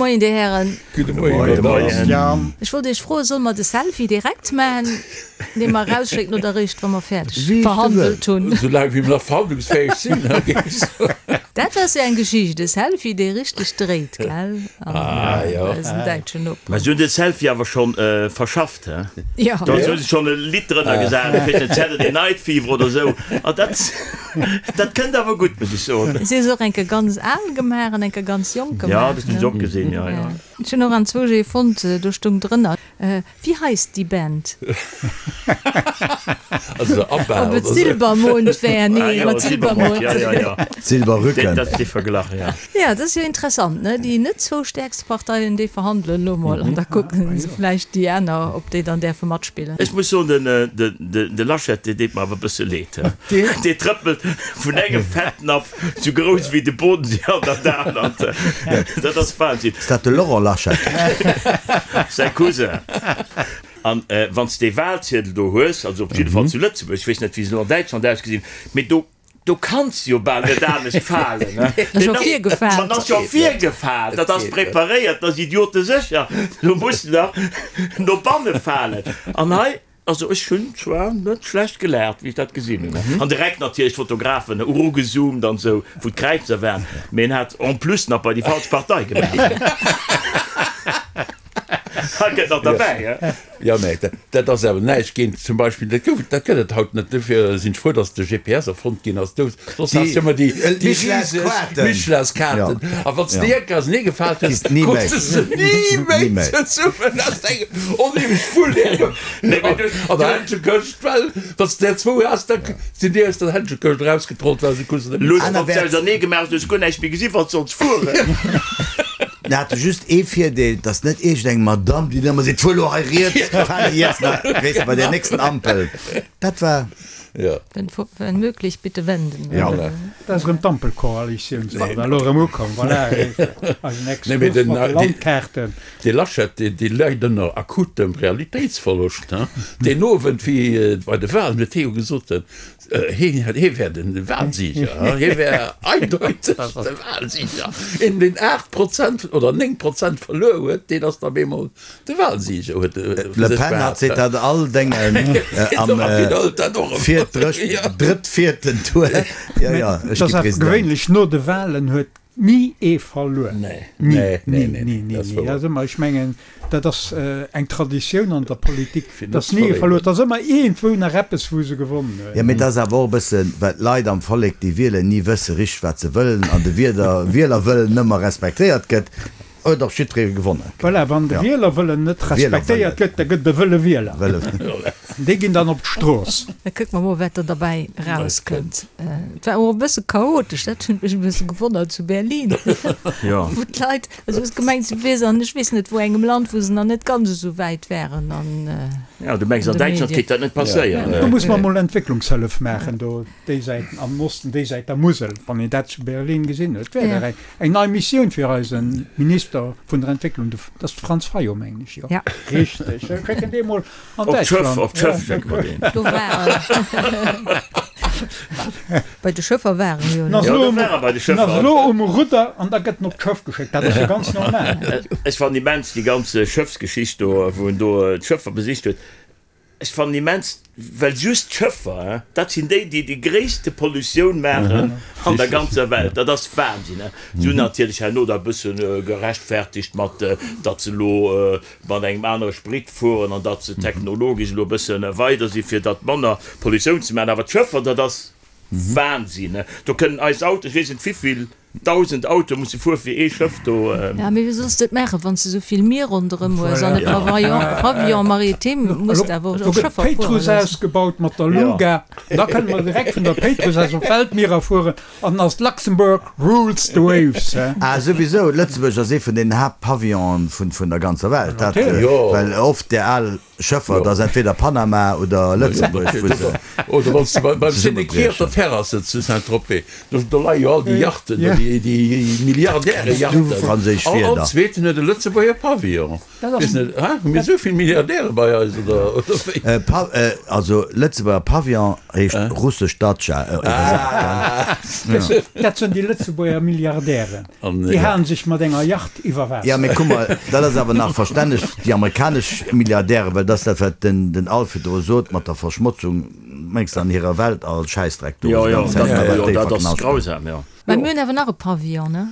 Moien, Dir Hären. Gudde Moien, Madame. Ech wollt Iech froen, solle mer de Selfie direkt maachen, dee mer erausschécken, oder eréischt, wa mer fäerdeg verhandelt hunn? Esou laang wéi mer nach verhandlungsfäeg sinn, géif ech soen. Dat ass jo eng Geschicht, e Selfie, dee richteg dréit, gell? An eisen däitschen Noperen. Mä si hunn de Selfie awer scho verschafft, he? Jo. Do hu se schonn e Lidd drënner gesat, ech weess net, Saturday Night Fever oder esou. An dat, dat kënnt awer gutt, muss ech soen. Si hu se och eng Kéier ganz al gemaach an eng Kéier ganz jonk gemaach, ne? Jo, dat hunn ech och gesinn, jo, jo. Ech hunn och anzwousch ee fonnt, do stoung drënner, Wie heisst die Band? Also ABBA Ob et Silbermond wär? Nee, mat Silbermond. Ja, ja, ja. Silberrücken. Dat ass dee Verglach, ja. Ja, dat ass jo interessant, ne? Déi net zwou stäerkste Parteien, déi verhandelen elo mol an da kucken se vläicht déi aner, ob déi dann däerfe matspillen. Ech muss soen, den, den, de Laschet, dee deet mer awer e bësse leed. Dee trëppelt vun engem Fettnapf Sou grouss wéi de Bodensee an dat anert. Dat ass Wahnsinn. Ass dat de Laurent Laschet? Säi Cousin. An wann s de Wahlziedel do hues, also op jidde Fall zu Lëtzebuerg, ech weess net wéi se elo an Däitschland ausgesinn, mee do, do kanns de jo bal net anescht falen. Ass scho virgefaalt. Man ass jo virgefaalt, dat ass preparéiert, dat ass idiotesécher, do muss de nach no banne falen. An hei Also ech hunn zwar net schlecht gelaacht wéi ech dat gesinn hunn, an direkt natierlech d'Fotografen erugezoomt an esou wou d'Kräizer waren, mee en hat en plus nach bei déi falsch Partei gemaach. Dat gëtt nach derbäi, he? Jo, mä dat ass awer näischt géint zum Beispill, dat gouf, dat gëtt et haut net, dofir sinn ech frou, datt de GPS erfonnt ginn ass, do soss has de ëmmer déi riseg Michelinskaarten, a wann s de déi eng Kéier ausenee gefaalt hues, krus de se ni méi zesummen, aus engem onheemlech Wull. An der Händschekëscht, well wann s de der zwou has, da sinn déi aus der Händschekëscht erausgetrollt, well se kruten se net méi. Lues wann s ausernee gemaach hues, hues guer näischt méi gesinn, wann s solls fueren. Mir hate just ee Virdeel, dass net iergendeng Madamm, déi dann ëmmer seet, fuer elo hei riets, fahr jetzt nach, weess de, bei der nächsten Ampel. Dat war. Wenn möglich, bitte wenden. Ja. Dat ass erëm d'Ampelkoalitioun, se ass elo erëm ukomm, voilà, eisen Exkurs mat de Landkaarten. Dee Laschet, dee leit ënner akutem Realitéitsverloscht. Deen Owend, wéi bei de Wahlen, huet hie jo gesot, hie wär de Wahlsieger, hie wär eindeuteg de Wahlsieger. Een, deen 8 Prozent oder 9 Prozent verluer huet, deen ass da op eemol de Wahlsieger, huet e vu Le sech Pen hat behaapt. seet dat all Déngen am drëtt-vierten Tour, jo, jo, ech Et gi ass awer President. gewéinlech no de Wahlen huet Ni ee verluer. Nee, Ni, nee, ni, nee, nee, ni, ni, dat ass ni. wouer. Dat ass ëmmer, ech mengen, dat ass eng Traditioun an der Politik, Fir net dass ze ni ee verléieren. verluer. Et ass ëmmer iergendwou nach eppes, wou se gewonnen Jo, hunn. mee et ass awer och e bëssen, well d'Leit am Vollek, déi wielen, ni wësse richteg, wat se wëllen an de Wieder Wielerwëllen ëmmer respektéiert gëtt, huet och jiddweree gewonnen. Voilà, wann de Ja. Wielerwëllen net respektéiert Wielerwëllen. gëtt, da gëtt et e wëlle Wieler. Wëlle. Déi ginn dann op d'Strooss. Da kucke mer mol, wat do derbäi erauskënnt. Et war och e bësse chaotesch, dat huet mech e bësse gewonnert zu Berlin, wou d'Leit, also hues gemengt, se wier se an ech weess net wou engem Land, wou se nach net ganz esou wäit wären an Jo, du mengs an de Däitschland Medien. kéint dat net passéieren? Do muss mer mol Entwécklungshëllef maachen do déi Säit am Osten, déi Säit der Musel, wann een dat zu Berlin gesinn huet. Wär dat eng nei Missioun fir eise Minister vun der Entwécklung, dat ass de Franz Fayot, mengen ech, jo richteg, schécken dee mol An Op d'Schëff, Däitschland. op d'Schëff schécke mer deen. Do war Bei de Schëffer war en jo. En ass Jo, elo do um, war e bei de en ass Schëffer. elo um Rudder an da gëtt en op d'Schëff geschéckt. Dat ass jo ganz normal. Ech fannen immens déi ganz Schëffsgeschicht do, wou en do d'Schëffer besicht huet. Ech fannen immens, well just d'Schëffer, hein, dat sinn déi, déi déi gréisste Pollutioun maachen an der ganzer Welt. Dat ass Wahnsinn, hein. Si hunn natierlech herno da e bësse gerechtfertigt mat, datt se elo mat engem anere Sprit fueren an datt se technologesch elo e bësse weider si fir datt manner Pollutioun ze maachen. Awer d'Schëffer, dat ass Wahnsinn. Do kënnen eis Autoen, ech weess net wivill dausend Autoe musse fuere fir ee Schëff do. Ja, mee wéi solls de et maachen, wann s de esou vill Mier ronderëm hues an e Pavillon, Pavillon maritime muss de awer Do och gëtt Schëffer fuere d'Péitruss loossen. ausgebaut mat der Luga, da kënne mer direkt vun der Péitruss aus op d'Weltmierer fueren An ass Luxembourg rules the waves, he? Ah souwisou, Lëtzebuerg ass ee vun den Haaptpavillonen vun der ganzer Welt, dat well oft där al. Schëffer, dat ass entweder Panama oder Lëtzebuerg, wou se Oder wann s de beim Sénéquier op der Terrasse zu Saint-Tropez, do do leie jo all déi Yachten, do déi déi Milliardäre-Yachten. Franséisch All Wierder. zweeten huet e Lëtzebuerger Pavillon. Weess net, ha hu mir esou vill Milliardäre bei eis oder oder wéi? Pa also Lëtzebuerger Pavillon heescht russesch Datscha iwwersat, gell? Dat sinn déi Lëtzebuerger Milliardären. Déi halen sech mat enger Yacht iwwer Waasser. Jo, mee kuck mol, dat ass awer nach verstänneg, déi amerikanesch Milliardären, well dat ass dat, wat den den Alf virdru sot mat der Verschmotzung, mengs de, an hirer Weltall Schäissdreck do, Jo, déi jo, ganz Zäit, dat, wat jo, déi dat ass verknaschten. grausam, jo. Mä mir hunn awer nach e Pavillon, ne?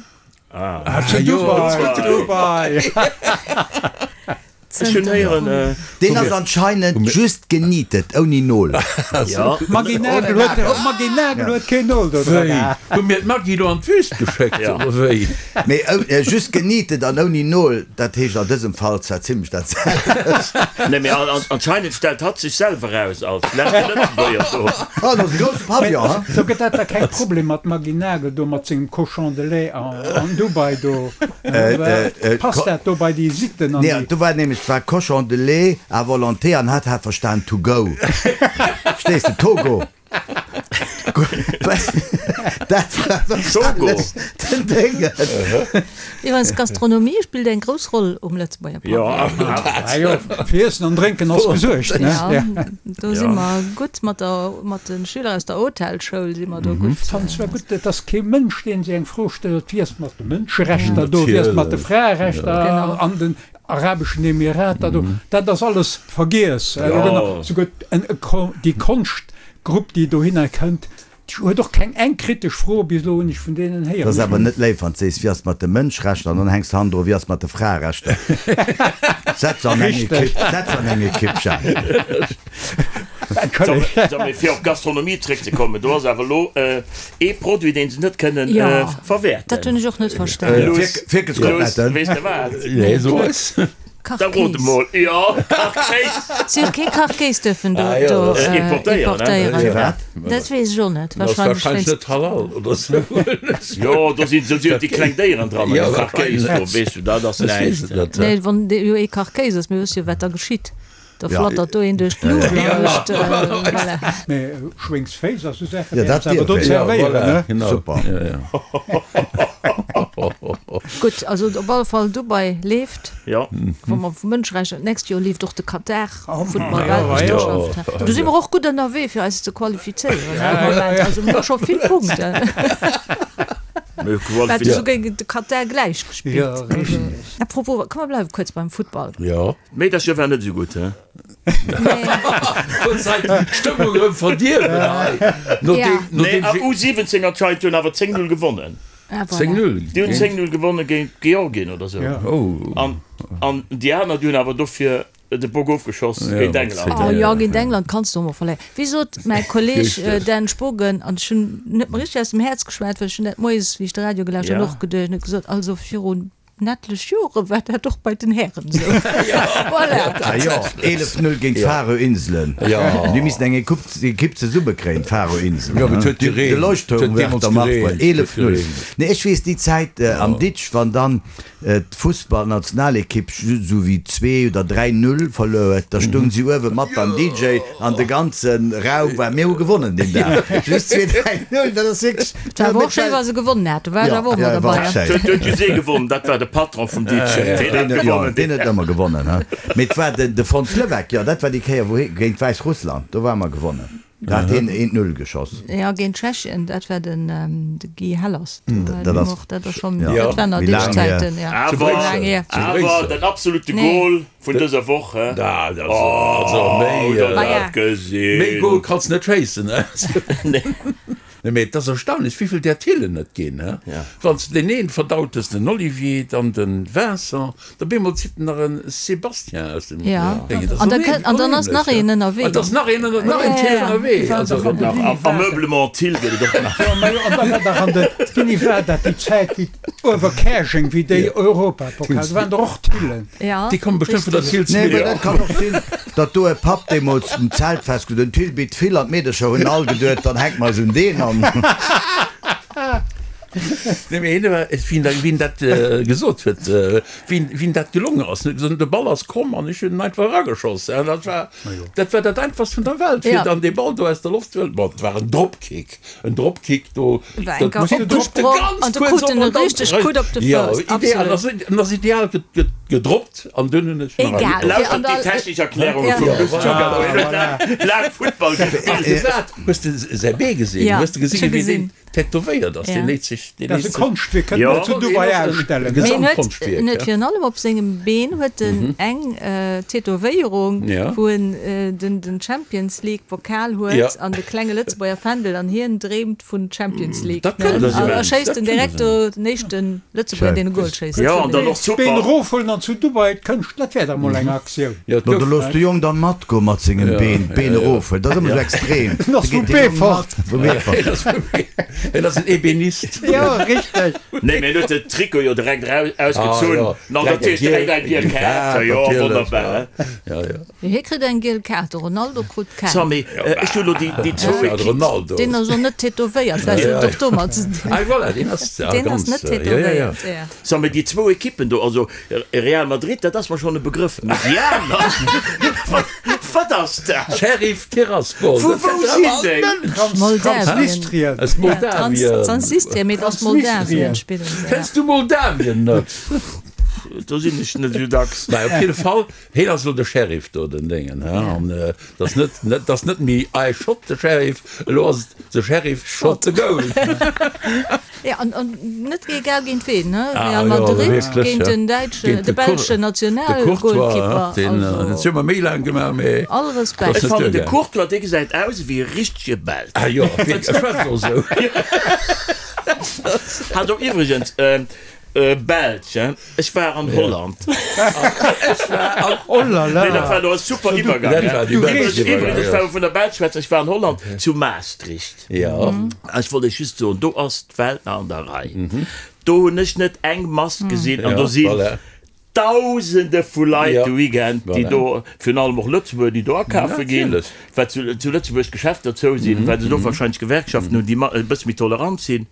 Ah, zu Dubai! Ech hunn héieren. Deen ass anscheinend just genietet, ouni Nol. Jo. D'Maggy Nagel huet, d'Maggy Nagel huet keen Nol do dran. Wéi? Hu mir d'Maggy lo an d'Wüst geschéckt, oder wéi? Mee just genietet an ouni Nol, dat heescht an dësem Fall zwar zimlech dat selwecht. Nee, mee anscheinend stellt hatt sech selwer aus als leschte Lëtzebuerger do. Oh, dat ass e grousse Pavillon, ha? Sou gëtt dat da keng Problem mat Maggy Nagel do mat sengem Cochon de lait an Dubai do? Passt dat do bei déi Sitten an déi. Nee, do war nämlech, et war Cochon de lait à volonté an hat hat verstan to go. Verstees de? Togo. Dat war wahrscheinlech den Déngen. Iwwerens, Gastronomie spillt eng grouss Roll um Lëtzebuerger Pavillon. Ah jo, fir Iessen an Drénken ass gesuergt, ne? Ja, do si mer gutt mat der, mat de Schüler aus der Hotelschoul si mer do gutt. Fannen zwar gutt, et ass kee Mënsch, deen sech eng Fro stellt, wéi ass et mat de Mënscherechter do, wéi ass et mat de Fraerechter an den arabeschen Emirater do. Dat ass alles vergiess. Souguer déi Konschtgrupp, déi dohinner kënnt, Déi huet och keng eng kritesch Fro bis elo hunn ech vun deenen héieren. Dat ass awer net léif, wann s de sees, wéi ass et mat de Mënschrechter, an dann hänks de hannendru, wéi ass et mat de Fraerechter. Setz se an eng Ekipp, setz se an eng Ekipp, Jacques. Entschëllegt. Mee fir op d'Gastronomie zréckzekommen, do ass awer elo ee Produit, deen se net kënnen verwäerten. Dat hunn ech och net verstanen. Fierkelskoteletten. Weess de wat? Nee, so eis. Da rot emol. Jo, Kachkéis. Si huet kee Kachkéis dürfen do importéieren. Firwat? Dat weess ech och net. Dat ass warscheinlech net halal oder sou. Jo, do sinn sou déi kleng Déieren dran am Kachkéis do, weess du, dat ass näischt. Nee, wann jo ee Kachkéis ass, mir wësse jo wat da geschitt. Da flattert do een duerch d'Luucht an mécht, voilà. Mee Schwéngsféiss a sou Saachen Ja, dat wäerte se awer do dierf een. zerwéieren, ne? Genau. Super. Ja, ja. Gutt, also op alle Fall Dubai leeft. Ja. Wa mer vu Mënscherechter, d'nächst Joer leeft och de Katar Futtball-Weltmeeschterschaft. Do si mer och gutt ënnerwee fir eis ze qualifizéieren am Moment. Also mir hu scho vill Punkten. Mir Mir hate souguer géint de Katar gläich gespillt. Ja, richteg. À propos, komm mer bleiwe kuerz beim Futtball. Jo. D'Meedercher war net esou gutt, he? Huet hei d'Stëmmung erëm verdierwen hei. Ja. Nee, a U17 anscheinend hunn awer 10, 0 gewonnen. Ah, voilà. 10, 0? Déi hunn 10, 0 gewonnen géint Georgien oder sou. Oh. An, an déi aner, déi hunn awer dofir de Bock ofgeschoss géint England. Oh jo, géint England kanns de och mol verléieren. Wéi sot mäi Kolleg Dan Spogen, an ech hunn net mer richteg aus dem Häerz geschwat, well ech hunn dat moies, wéi ech de Radio gelauscht hunn, och geduecht, en huet gesot, also virun En etlech Jore war dat och bei den Hären esou. Voilà. Ah jo, 11, 0 géint d'Faroe-Inselen. Déi missten eng Equipe zesummekréien, d'Faroe-Inselen. Jo, mee et huet gereent. De Leuchtturm war der Macht bei 11, 0. Nee, ech weess déi Zäit am Ditsch, wann dann d'Fussballnationalequipe just esou wéi 2 oder 3, 0 verluer huet, da stoung si uewe mat beim DJ an de ganze Raum war, mir hu gewonnen deen Dag. Just 2, 3, 0, dat ass wierklech. Et war awer och schéi wa se gewonnen hat, do war ech awer och mat derbei. Et huet just ee gewonnen, dat war de Patron vum Ditchen. Deen huet gewonnen. Deen huet ëmmer gewonnen, he. Mee et war de Fons Levesque, jo, dat war déi Kéier wou hie géint Wäissrussland, do ware mer gewonnen, do hat hien eent Null geschoss. Jo, géint Tschechien, dat war den Guy Hellers. Dat ass dat ass schonn, dat waren nach méi laang hier. Zäiten, jo. Awer, awer den absolute Goal vun dëser Woch, he? Dat ass also méi, Hutt der dat gesinn? Méi Goal kanns de net schéissen, he? Nee. Nee, mee et ass erstaunlech, wéivill där Thillen et ginn, he? Wann s de deen een verdaut hues, den Olivier, dann den Vincent, da bemol zitt en nach en Sébastien aus dem Déngen. Dat ass An da kënnt, an dann ass nach een ënnerwee. An da ass nach een, nach een Thill ënnerwee. Also, A Meublement Thill gëtt et och nach. Jo, ma jo, an da war dach an de, wéini war dat, déi Zäit, wéi Uewerkäerjeng, wéi déi Europapokal, do waren der och Thillen. Déi komme bestëmmt vun der Nee, mee Thillsmille. dat kann och sinn, datt do e Papp deemools um Zeltfest gesot huet, den Thill bitt vill an d'Meedercher hunn all geduet, dann hänke mer eis un deen an. Nee, mee hien war, wien dat, wien dat gesot huet, wien, wien dat gelongen ass, en huet gesot, de Ball ass komm an ech hunn en einfach erageschoss. An dat war, dat war dat einfachst vun der Welt, fir dann dee Ball do aus der Loft ze huelen. Bon, et war en Dropkick, en Dropkick do, War enker opgesprong an du krut en e richteg Coup op de Fouss. Absolut. Jo, ideal, en ass ideal gedroppt an dunn hunn ech nach. Egal. Lauschtert déi technesch Erklärunge vum Luss Giacaldo, hien huet laang Futtball gespillt. Hues de säi Bee gesinn? Hues de gesinn, wéi deen tätowéiert ass? Deen léit sech, deen léit sech. Dat ass e Konschtwierk, kënnt mer zu Dubai ausstellen. Mee en huet, en huet virun allem op sengem Been huet en eng Tätowéierung, wou en den, den Champions League Pokal huet an de klenge Lëtzebuerger Fändel an hien dreemt vun Champions League. Dat kënnt an a schéisst en direkt do den éischten Lëtzebuerger, deen e Goal schéisst. Jo, an dann och super. D'Been erofhuelen an zu Dubai d'Kënscht, dat wär dach mol eng Aktioun. Jo, do looss de Jong dann matgoen mat sengem Been, d'Been erofhuelen, dat ass ëmmer sou extrem. En ass vu Beefort. Vu Beefort. En ass en Ebenist. Jo, richteg. Nee, mee en huet de Trikot jo direkt eraus ausgezunn. An natierlech direkt eng giel Kaart. Jo, wonnerbar. Jo, jo. Hie kritt eng giel Kaart, de Ronaldo krut keng. So, mee ech hu lo déi déi zwou Equipe. Deen ass och net tätowéiert, vläicht huet et och domat ze dinn. Ah, voilà, deen ass Deen ass net tätowéiert, jo. So, mee déi zwou Equippen do, also Real Madrid, dat ass mer schonn e Begrëff, mee déi aner, wat, wat ass dat? Sheriff Tiraspol. Vu wou sinn déi? Transnistrien. Aus Moldawien. Transnistrien, mee et ass Moldawien spillen se, ja. Kenns du Moldawien net? Do sinn ech net esou dacks. Mä op jidde Fall, Heen ass elo de Sheriff do, den Déngen, he, an et ass net, et ass net méi I shot the sheriff, elo ass et the sheriff shot the goal. Jo, an, an net egal géint ween, he, Real Madrid géint den däitschen, de belschen Nationalgoalkeeper, also. Dat hu mer méi laang gemaach, mee. All Respekt. Ech fannen de Courtois, dee gesäit aus ewéi e richtege Belsch. Ah jo, ech schwätzt och esou. Hat och iwwregens, Belsch, hein? Ech war an Holland. Ech war an. Oh la la! Nee, dat war elo e super Iwwergang, Dat war déi bescht Iwwergang. Iwwregens, wa mer vun der Belsch schwätzen, ech war an Holland, zu Maastricht. Jo. Ech wollt Iech just soen, do ass d'Welt nach an der Rei. Do hunn ech net eng Mask gesinn an do si Dausende vu Leit de Weekend, déi do, virun allem och Lëtzebuerger, déi do akafe ginn, well zu Lëtzebuerg d'Geschäfter zou sinn, well se do warscheinlech Gewerkschaften hunn, déi e bësse méi tolerant sinn.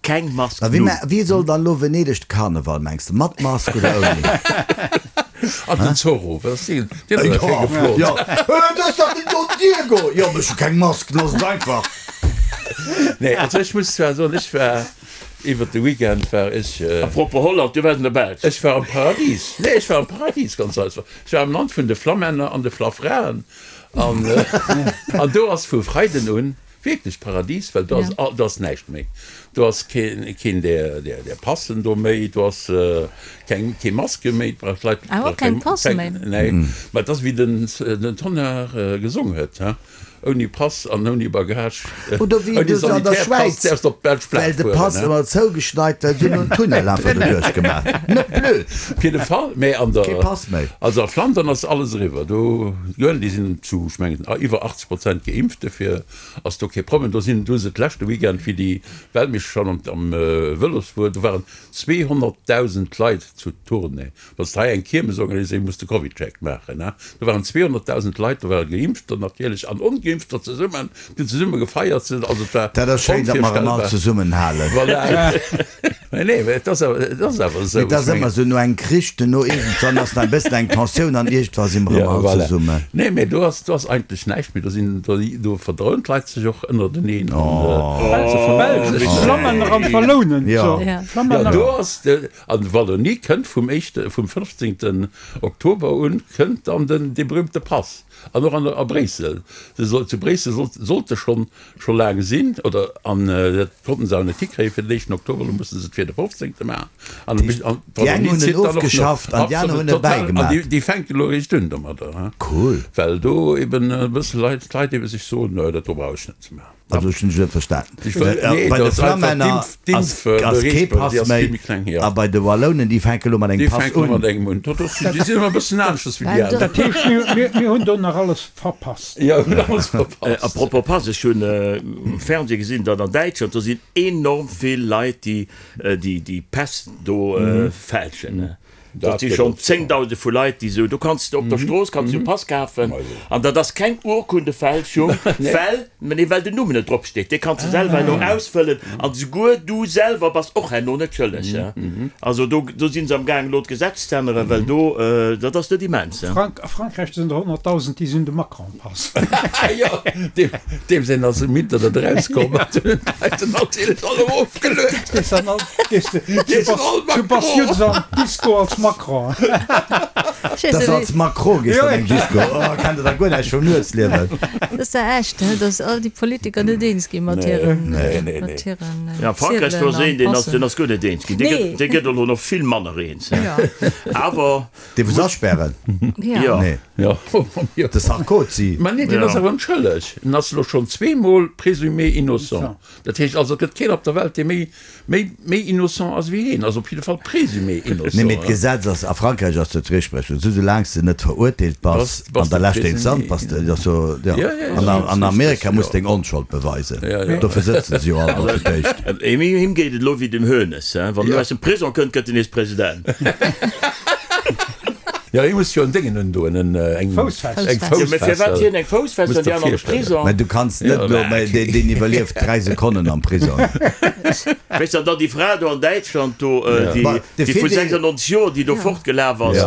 Keng Mask, A wéi null. wéi soll dann elo Venedeg de Karneval, mengs de? Mat Mask oder ouni? An den Zorro, wat ass deen? Deen ass awer schéi geflott. Jo, dat ass dach den Don Diego! Jo, mee ech hu keng Mask, looss et einfach. Nee, also ech muss zwar soen, ech war iwwert de Weekend war ech. A propos Holland, du waars an der Belsch. Ech war am Paradies. Nee, ech war am Paradies, ganz einfach. Ech war am Land vun de Flamänner an de Flafraen. An, an do ass vu Freiden un wierklech Paradies, well do ass, do ass näischt méi. Do ass keen, keen där, där, där Passen do méi, do ass keng, kee Maske méi, brauch d'Leit. Ah, och keng Passe méi? Nee, mä et ass wéi den, den Tonnar gesong huet, he. Ouni Pass an ouni Bagage, Oder wéi ouni du se an der Sanitärpass Schwäiz, däerfs de op d'belsch well Plaz de fueren, Pass ne? ëmmer zougeschneit well, se hunn en Tunnel einfach doduerch gemaach. Net blöd. Op jidde Fall, mä an der, Kee Pass méi. also a Flandern ass alles eriwwer. Do, déi sinn zu, ech mengen, iwwer 80 Prozent geimpft, dofir ass do kee Problem. Do sinn, do hu se d'leschte Weekend, wéi déi Weltmeeschterschaft am, am Vëlos wuar, do waren 200.000 Leit zu Tournai. Wann s de hei eng Kiermes organiséiers, muss de Covidcheck maachen. Do waren 200.000 Leit, do ware Geimpfter natierlech an Ongeimpfter zesummen, déi hunn zesumme gefeiert. Also et war Dat ass schéin, datt mer erëm all onvirstellbar. zesummenhalen. Voilà. Mee nee, mee et ass awer, et ass awer esou. Mee et ass Ech ëmmer mengen. esou, no engem Krich, duerno iergendwann ass nach e bëssen eng Tensioun an iergendwa si mer Ja, erëm all voilà. zesummen. Nee, mee do ass, do ass eigentlech näischt méi. Do sinn, do, do verdroen d'Leit sech och ënnerteneen an se vermëllen sech. D'Flammänner an d'Wallounen. Jo. So, Flammänner. Jo, do ass de. An Wallonie kënnt vum éischte, vum 15. Oktober un kënnt dann den, dee berühmte Pass. An och an, a Bréissel. Se soll, zu Bréissel sollt, sollt e schonn, scho laang sinn, oder, an dat konnten se awer net hikréien fir den éischten Oktober, elo musse se et fir de 15. maachen. An, an Déi eng d'Wallonie hunn en zitt dann och no. ofgeschafft an déi aner Absolut, hunn e total. An bäigemaach. déi, déi fänken elo eréischt un domadder, hein. Cool. Well do eben e bësse Leit, d'Leit ebe sech soen, no, dat do brauch ech net ze maachen. Also ech hunn dech net verstanen. Bei de Flammänner ass kee Pass méi a bei de Wallounen, déi fänke lo mat engem Pass un. Dat heescht, mir hunn do nach alles verpasst. A propos Pass, ech hunn um Fernseh gesinn, datt an Däitschland, do sinn enorm vill Leit, déi déi Päss do fälschen. Dat si schonn Zéngdausende vu Leit, déi esou, do kanns de op der Strooss kanns du e Pass kafen an dat ass keng Urkundefälschung, well, nee, well den Numm net drop steet. Dee kanns de selwer herno ausfëllen an esouguer du selwer bass och herno net schëlleg. Also do, do si se am gaang elo d'Gesetz ze änneren, well do, dat ass net immens. A Frankräich sinn der 100.000, déi sinn de Macron-Pass. Jo, deem säin ass um Internet erauskomm, an hunn d'Leit en natierlech all erofgeluet. Du bass just an d'Disco als Macron. Dass als Macron gees an eng Disco, oh, kennt der da guer näischt vum Nuetsliewen. Dat ass da echt, he, dass all déi Politiker net eens gi mat hiren, mat hiren Ja, Frankräich, do ass een, deen ass, deen ass guer net eens ginn. Dee gëtt, dee gëtt elo nach vill manner eens, he. Awer. Dee wou se aspären? Jo. Nee. Jo. De Sarkozy. Mä nee, deen ass awer onschëlleg. En ass elo schonn zweemol présumé innocent. Dat heescht also, et gëtt keen op der Welt, dee méi, méi, méi innocent ass wéi hien. Also op jidde Fall présumé innocent. Nee, mee d'Gesetz ass, a Frankräich ass dat d'Rechtsprechung, esou soulaang s de net verurteelt bass an der leschter Instanz, bass de, ass jo, jo. An an Amerika muss deng Onschold beweisen. Dofir sëtzen se jo all do fir d'éischt. Him geet et elo wéi dem Hoeneß, wann en aus dem Prisong kënnt, gëtt en nees President. Jo, hie muss jo en Déngen undoen, en, eng Foussfessel. Eng Foussfessel. Jo, mä firwat hien eng Foussfessel an déi aner de Prisong? Mä du kanns net elo, mä deen, deen iwwerlieft 3 Sekonnen am Prisong. Weess der, dann déi Fra do an Däitschland do, déi, déi vu 96 Joer, déi do fortgelaf ass,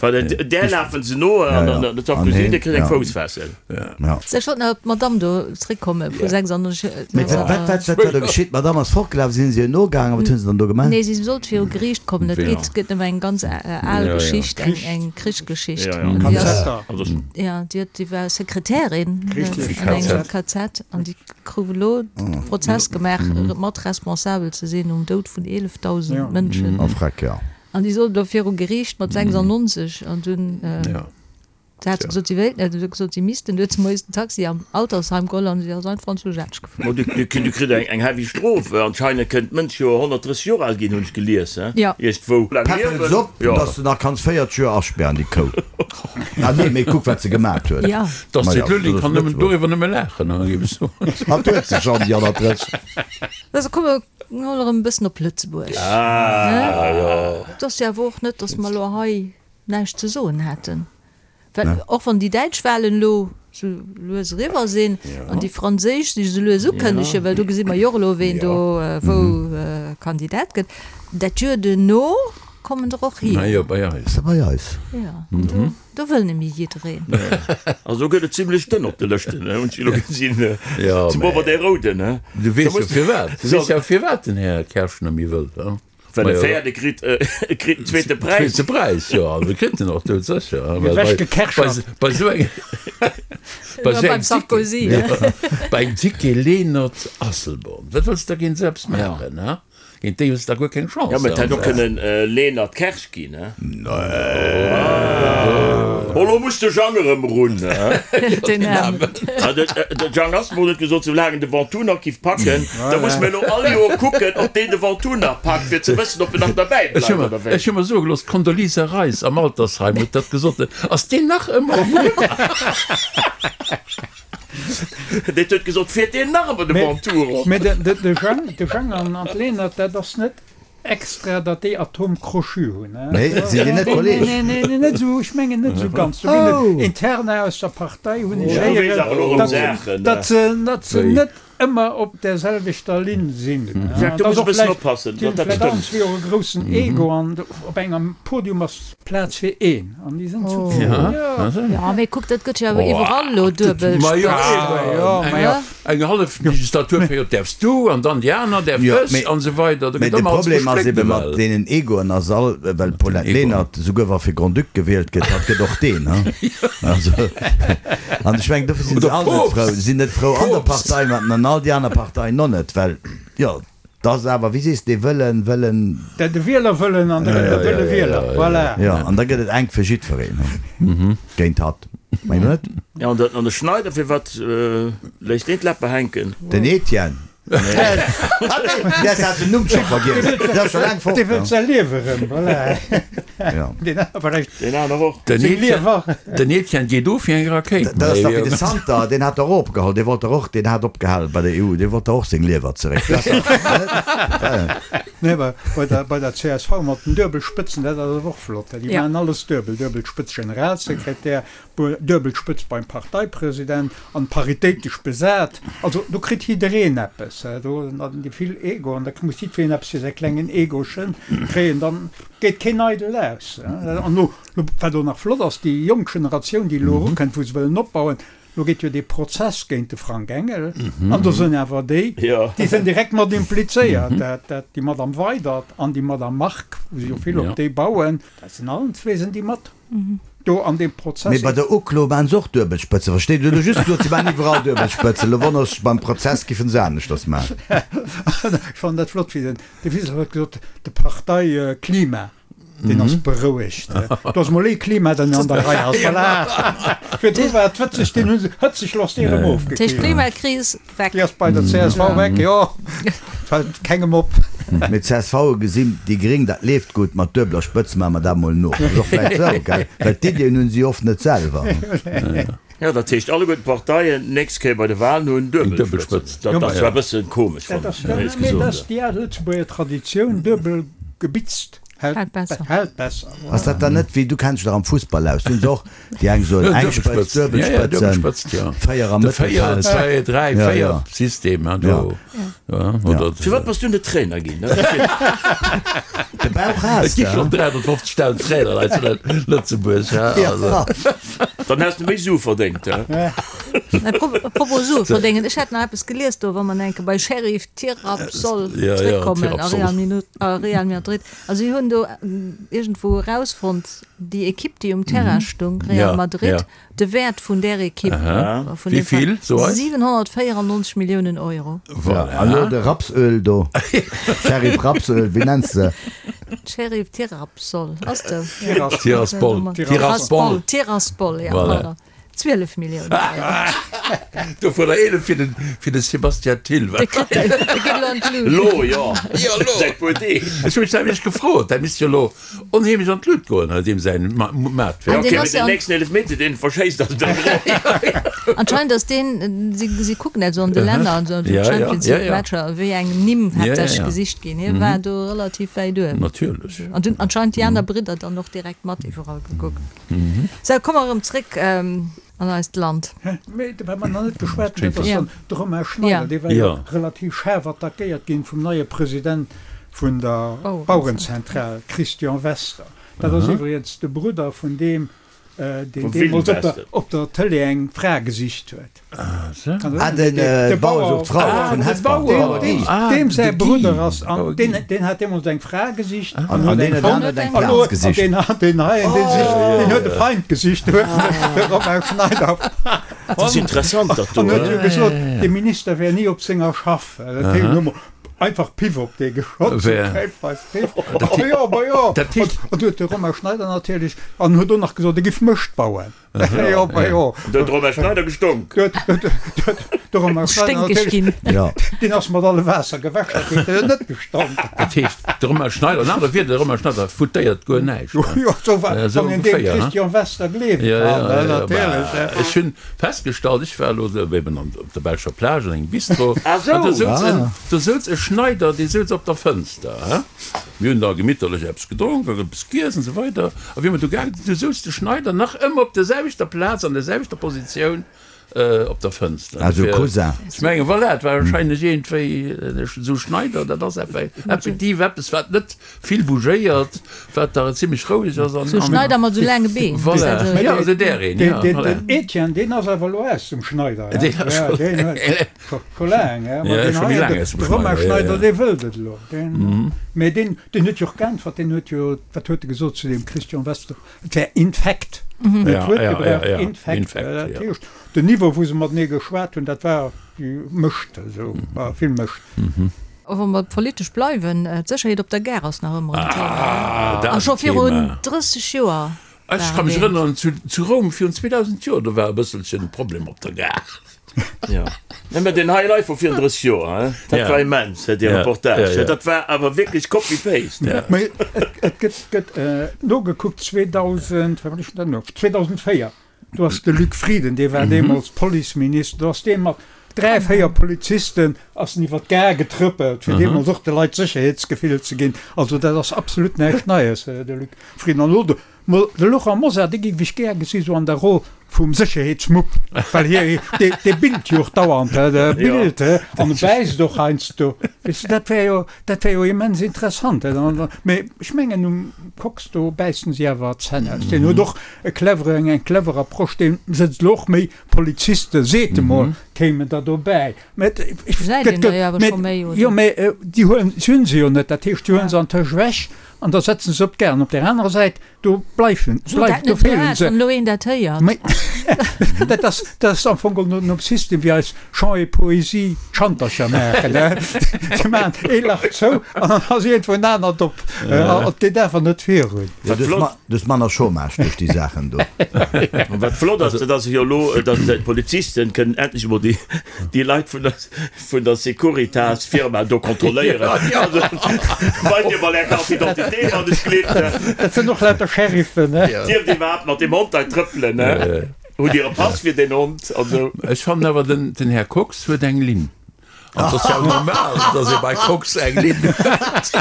well där lafen se no an dann de Sarkozy, dee kritt eng Foussfessel. Ech wollt nach op d'Madame do zréckkomme vu 96. Mä wat, wat, wat war do geschitt? D'Madame ass fortgelaf, sinn se ihr nogaangen? Wat hunn se dann do gemaach? Nee, si sollt viru Geriicht kommen. Et geet, gëtt ëm eng ganz al Geschicht, eng, eng Krichsgeschicht. An déi ass, jo, déi huet, déi war Sekretärin an engem KZ an déi krut elo de Prozess gemaach, mat responsabel ze sinn um Doud vun 11.000 Mënschen. Oh, freck, jo. An déi sollt elo viru Geriicht mat 96 an dunn. Da hat se gesot, si wéilt net. Du huet gesot, si missten. Du huet se moies den Taxi am Altersheim geholl an si ass einfach an zu Esch gefuer. Ma du kritt eng heavy Strof. Anscheinend kënnt d'Mënsch jo 130 Joer al ginn, hunn ech gelies, he? Iergendwou. Päppel se op, dass de nach kanns 40 Joer aspären, déi Kou. Ah nee, mee kuck wat se gemat huet. Ja. D'Astrid Lulling kann nëmmen doriwwer nëmme laachen, géif ech soen. Hatt huet se schonn, déi 130. Also komme mer mol erëm e bëssen op Lëtzebuerg. Ah jo. Et ass jo awer och net, dass mer elo hei näischt ze soen hätten. Well och wann déi däitsch Wahlen elo sou lues eriwwer sinn an déi franséisch sech esou lues ukënnegen, well do gesi mer jo och elo, ween do wou Kandidat gëtt, dat Joer duerno kommen der och hier. Jo, bei eis. Ass dat bei eis? Jo, an do, do wëll nemmi jiddereen. Also do gëtt et zimlech dënn op de Lëschten, hunn ech elo gesinn, zemol bei de Rouden. Du weess jo firwat, du weess jo firwat den Här Kersch nemmi wëll, he? Well e Féierde kritt e kritt den zweete Präis. Zweete Präis, jo, also kritt en och dout sécher. Ewechgekerchert. Bei esou engem, bei esou engem Sarkozy, bei engem Ticket Lenert Asselborn, wat wëlls de da géint esou eppes maachen, ha? Géint déi hues de da guer keng Chance. Jo, mä et hätt och kënnen Lenert Kersch ginn, he? Oh, lo muss de Jang erëm erun, he? Den Aarmen. De Jang Asselborn huet gesot, soulaang en de Ventoux nach giff packen, da muss mir elo all Joer kucken, ob deen de Ventoux nach packt, fir ze wëssen, ob en nach derbäi bleift oder wéi. Ech hu mer soe gelooss, d'Condoleezza Rice am Altersheim huet dat gesot. Ass deen nach ëmmer um Rumm? Deen huet gesot, fiert deen nach ëmmer de Ventoux erop? Mee de Jang, de Jang an d'Lenert, dat ass net extra, datt déi Atome crochu hunn. Nee, sinn déi net Kolleeg? Nee, nee, nee, net esou, ech mengen net esou ganz. Do ginn et Interna aus der Partei, hunn ech héieren, datt se, datt se net ëmmer op där selwechter Linn sinn. Jacques, do muss e bëssen oppassen, datt dat stëmmt. Vläicht allen zwee och e groussen Ego an op engem Podium ass Plaz fir een an déi sinn zu zwee. Jo, mee kuck, dat gëtt jo awer iwwerall elo duebel Spëtzt. Eng hallef Legislaturperiod däerfs du an dann déi aner däerf ech an esou weider. Mee de Problem ass ebe mat deenen Egoen ass all, well d'Paulette Lenert esouguer wa fir Grand-Duc gewielt gëtt, hatt gëtt och deen, ha. Also, an ech mengen dofir sinn se all net frou, sinn net frou an der Partei mat an all déi aner Parteien och net, well jo, et ass awer, wéi sees de, dee Wëllen, Wëllen. De Wielerwëllen an de Wëlle Wieler, voilà. Jo, an da gëtt et enk fir jiddwereen, ha, géint hatt. Mengt Der net? Ja, an de Schneider, firwat léisst deen d'Läpper hänken? Den Etienne? Ah nee, däers hat den Numm scho vergiess. Deen ass scho laang fort. Dee wëllt säi Liewe rëm, voilà. Ja. Deen aner vläicht. Deen aner och. Den Seng Liewer. Den Etienne geet of wéi eng Rakéit. Dat ass dach wéi de Santer, deen hat dach och opgeholl, dee wollt dach och, deen hat opgehal bei der EU, dee wollt dach och seng Liewer zeréck. Dat ass dach, net? Nee, awer bei der, bei der csv mat den Duebelspëtzen, dat ass awer och flott. Déi maachen alles duebel, duebel Spëtz Generalsekretär, duebel Spëtz beim Parteipresident an paritéitesch besat. Also do kritt jiddereen eppes. Do hunn déi vill Ego an da muss jiddwereen eppes fir säi klengen Egochen kréien, dann geet keen eidel aus. An elo, wat och nach flott ass, déi jonk Generatioun, déi elo erukënnt, wou se wëllen opbauen, Lo geet jo dee Prozess géint de Frank Engel an do sënn awer déi, déi sënn direkt mat implizéiert, dat dat déi Madame Weydert an déi Madame Margue, wou se jo vill op déi bauen, dat sinn allen zwee sënn déi mat do an deem Prozess. Mee bei der Uklo maachen se och Duebelspëtzen, versteet? Dir hutt elo just gesot, se maachen iwwerall Duebelspëtzen. Elo wonners ech, beim Prozess giffen se aneschters maachen. Ech fannen dat flott, wéi den de Wiseler huet gesot, de Parteiklima. Deen ass berouegt. Do ass mol ee Klima, den an der Rei ass. Voilà. Virdru war et hëtzeg, deen hu se hëtzeg loss dee erëm ofgekillt. D'Klimakris weg. Déi ass bei der csv weg, jo. Fält kengem op. Mee d'CSV gesinn, déi Gréng, dat leeft gutt, mat duebeler Spëtz maache mer dat mol no. Ass och vläicht esou, gell? Well d'Iddien hunn si oft net selwer. Jo, dat heescht alleguerten d'Parteien d'nächst Kéier bei de Wahlen hunn Duebelspëtzen. Dat ass zwar e bëssen komesch, fannen ech, éierlech gesot. Dat ass déi al Lëtzebuerger Traditioun, duebel gebitzt hält besser. Ass dat dann net wéi, du kenns dech dach am Fussball aus, do hunn se och déi eng soen eng Spëtz, Duebelspëtzen, 4 am Mëttelfeld. 2, 3, 4 System, do. Firwat bass du net Trainer ginn? De Bauch has Et gi schonn 350.000 Trainer hei zu Lëtzebuerg. Dann häss de méi Sue verdéngt. Apropos Sue verdéngen, ech hat nach eppes gelies do, wa mer enke bei Sheriff Tiraspol zréckkommen a Real Madrid. Also si hunn do iergendwou erausfonnt, déi Ekipp, déi um Terrain stung, Real Madrid, De Wäert vun där Ekipp, vun deem Veräin, 794 Milliounen Euro. Voilà. An elo de Rapsöl do, Sheriff Rapsöl, wéi nenns de? Sheriff Tirapsol, ass de? Tiraspol. Tiraspol. Tiraspol, ja, pardon. 12 Milliounen Euro. Dovunner 11 fir den, fir de Sébastien Thill. Dee kritt, dee geet elo an d'Lut. Elo, jo. Jo, elo. Säit puer Deeg. Ech hu mech nämlech gefrot, dat misst jo elo Onheemlech an d'Lut goen, hei deem säin Maatwerk. Ok, mee den nächsten Eelefmeter deen en verschéisst ass dann dran. Anscheinend ass deen, si si kucken dat esou an de Länner an esou Champions League Matcher, wéi eng Nimm haaptsächlech gesicht ginn. Hie war do relativ wäit uewen. Natierlech. An dunn anscheinend déi aner Bridder dann och direkt mat iwwerall gekuckt. Sou, komme mer erëm zréck an eist Land. Mee wat mer nach net geschwat hunn, dat ass dann de Romain Schneider, dee war jo relativ schaarf attackéiert ginn vum neie President vun der Bauerenzentral, Christian Wester. Dat ass iwwregens de Brudder vun deem, deen deemools op der Tëlee eng Fra gesicht huet. Ah, de Bauer sucht Frau vun Hesper. Deem säi Brudder ass, an deen hat deemools eng Fra gesicht an huet eng fonnt. An deen huet eng Plaz gesicht. An deen heien, deen sicht, deen huet e Feind gesicht, de Romain Schneider. Dat ass interessant, dat do. An huet jo gesot, de Minister wär ni op senger Schaff. Dat heescht, hu mer einfach Piff op dee geschott. Piff. Jo, ma jo. An du huet de Romain Schneider natierlech, an huet och nach gesot, e giff Mëscht bauen. Jo, ma jo. Do huet de Romain Schneider gestonk. De Romain Schneider Sténkeg ginn. Deen ass mat alle Waasser gewäsch, dat huet en net gestonk. Dat heescht, de Romain Schneider, an anere Wierder, de Romain Schneider foutéiert guer näischt. Jo, sou war, wann een deem Christian Wester gleewe kann, natierlech. Ech hunn festgestallt, ech war elo eben op der belscher Plage an engem Bistro, an do souz en, do souz e Schneider, dee souz op der Fënster, he. Mir hunn da gemitterlech eppes gedronk an eppes giess an esou weider. A wéi mer do gaange sinn, du souz de Schneider nach ëmmer op der selwechter Plaz, an der selwechter Positioun op der Fënster. Also Cousin. Ech mengen, voilà, et war wahrscheinlech iergendwéi esou Schneider, dat ass effektiv eppes, wat net vill bougéiert, wat da zimlech roueg ass an. Sou Schneider mat sou laange Been. Voilà, jo, esou där een, jo, voilà. Den Etienne, deen ass awer elo aus dem Schneider, he? Deen ass scho. Deen huet scho laang, he? Ma deen hei, de Romain Schneider, dee wëllt et elo. Deen, mee deen, deen huet jo och geäntwert, deen huet jo, wat huet e gesot zu deem Christian Wester? Et wär Infekt, net d'Wuert gebraucht, Infekt. Dat heescht, den Niveau, wou se matenee geschwat hunn, dat war Mëscht, esou, war vill Mëscht. A wa mer politesch bleiwen, d'Sécherheet op der Gare ass nach ëmmer en Thema. A scho virun 30 Joer war Ech ka mech erënneren, zu Roum virun 2000 Joer, do war e bësselchen Problem op der Gare. Jo, nee, mä deen High Life vu virun 30 Joer, hein, dat war immens, dee Reportage, dat war awer wierklech Copy-Paste. Mä et gëtt, gëtt nogekuckt, 2000, wat war dat elo, 2004, do ass de Luc Frieden, dee war deemools Policeminister, do ass dee mat. 3, 4 Polizisten ass en iwwer d'Gare getrëppelt, fir deemools och de Leit Sécherheetsgefill ze ginn. Also dat ass absolut näischt Neies, de Luc Frieden. An elo de de Laurent Mosar, dee géif ech gär gesi sou an der Roll vum Sécherheetsmupp, well hie, dee, dee billt jo och dauernd, dee billt an e bäisst och heiansdo. Weess de, dat wär jo, dat wär jo immens interessant. Mee ech mengen um Kox do bäissen si awer d'Zänn aus. Deen huet och e clevere, eng clever Approche, dee sëtzt elo och méi Poliziste, seet emol, kéimen der dobäi. Mä et, Gesäit een der jo awer scho méi, oder? Jo, mä déi huelen, si hunn se jo net. Dat heescht, si huelen se antëscht ewech an da setzen se op d'Gare. An op där anerer Säit, do bleiwen, Sot dat bleif, do net esou feelen haart, se. wann elo een dat héiert. Mä dat ass, dat ass am Fong geholl nom System wéi eis Chant et Poésie d'Schantercher maachen, ne? Se maachen ee Lach zou an dann ass iergendwou en anert op. An et geet awer net virun. Wat flott. Du hues manner Chômage duerch déi Saachen do. An wat flott ass, dat ass jo elo, datt d'Polizisten kënnen endlech emol déi, déi Leit vun der, vun der Securitas Firma do kontrolléieren. Also, weist Dir mol Är Carte d'identité, wann ech gleeft. Dat sinn och lauter Sheriffen, ne? Dierft Dir iwwerhaapt mat deem Hond hei trëppelen, ne? Hutt Dir e Pass fir deen Hond? Also. Ech fannen awer, den, den Här Kox huet eng Linn. An et ass jo normal, dass ee bei Kox eng Linn huet.